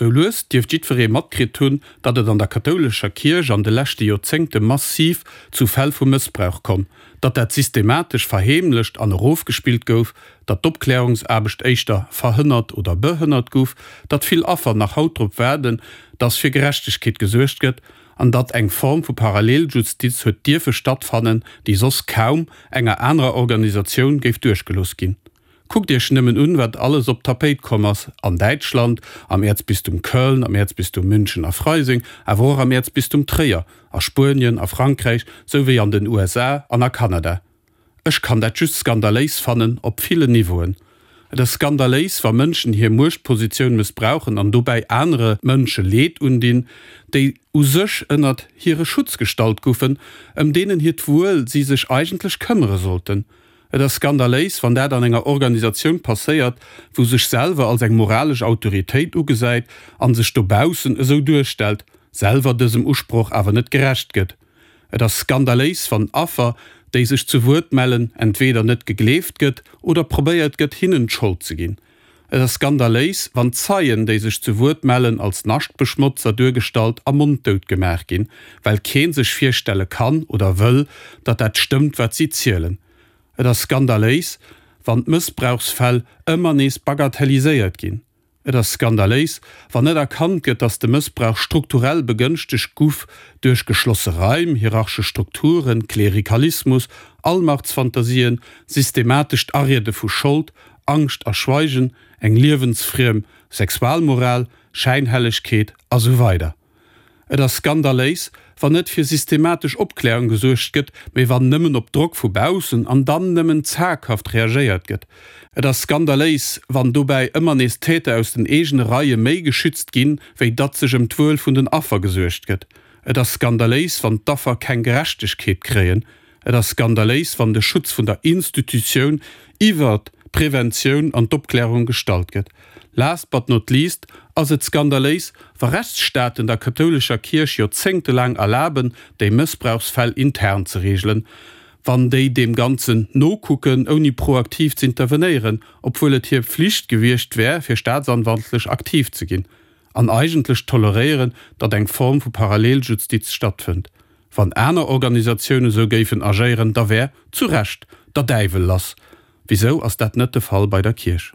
Sou lues dierft jiddweree matkritt hunn, datt et an der kathoulescher Kierch an de leschte Joerzéngte massiv zu Fäll vu Mëssbrauch komm, datt dat systematesch verheemlecht an erofgespillt gouf, datt d'Opklärungsaarbecht éischter verhënnert oder behënnert guff, datt vill Affer nach haut drop waarden, datt fir Gerechtegkeet gesuergt gëtt an datt eng Form vu Paralleljustiz huet dierfe stattfannen, déi soss kaum enger anerer Organisatioun géif duerchgelooss ginn. Kuckt Iech nëmmen un, wat alles op d'Tapéit komm ass an Däitschland, am Äerzbistum Köln, am Äerzbistum München a Freising, awer och am Äerzbistum Tréier, a Spuenien, a Frankräich, sou wéi an den USA an a Kanada. Ech kann dat just skandaléis fannen, op villen Niveauen. Et ass skandaléis, wa Mënschen hir Muechtpositioun mëssbrauchen an dobäi anere Mënsche Leed undinn, déi u sech ënnert hire Schutz gestallt goufen, ëm deenen hiert Wuel si sech eigentlech këmmere sollten. Et ass skandaléis, wann dat an enger Organisatioun passéiert, wou sech selwer als eng moralesch Autoritéit ugesäit an sech dobaussen esou duerstellt, selwer dësem Usproch awer net gerecht gëtt. Et ass skandaléis, wann Affer, déi sech zu Wuert mellen, entweeder net gegleeft gëtt oder probéiert gëtt, hinnen d'Schold ze ginn. Et ass skandaléis, wann Zeien, déi sech zu Wuert mellen, als Naschtbeschmotzer duergestallt a monddout gemaach ginn, well kee sech virstelle kann oder wëll, datt dat stëmmt, wat si zielen. Et ass skandaléis, wann d'Mëssbrauchsfäll ëmmer nees bagatelliséiert ginn. Et ass skandaléis, wann net erkannt gëtt, datt de Mëssbrauch strukturell begënschtegt guff duerch geschlosse Raim, hierarchesch Strukturen, Klerikalismus, Allmachtsfantasien, systematescht Ariede vu Schold, Angscht a Schweigen, eng liewensfriem Sexualmoral, Schäinhellegkeet a sou weider. Et ass skandaléis, wann net fir systematesch Opklärung gesuergt gëtt, mee wann nëmmen op Drock vu baussen an dann nëmmen zaghaft reagéiert gëtt. Et ass skandaléis, wann dobäi ëmmer nees Täter aus den eegene Reie méi geschützt ginn, wéi datt sech ëm d'Wuel vun den Affer gesuergt gëtt. Et ass skandaléis, wann d'Affer keng Gerechtegkeet kréien. Et ass skandaléis, wann de Schutz vun der Institutioun iwwert d'Preventioun an d'Opklärung gestallt gëtt. Last but not least ass et skandaléis, wa Rechtsstaaten der kathoulescher Kierch joerzéngtelaang erlaben, déi Mëssbrauchsfäll intern ze reegelen, wann déi deem Ganzen nokucken, ouni proaktiv z'intervenéieren, obwuel et hir Pflicht gewiescht wär, fir staatsanwaltlech aktiv ze ginn, an eigentlech toleréieren, datt eng Form vu Paralleljustiz stattfënnt. Wann aner Organisatiounen esou géifen agéieren, da wär, zu Recht, der Däiwel lass. Wisou ass dat net de Fall bei der Kierch?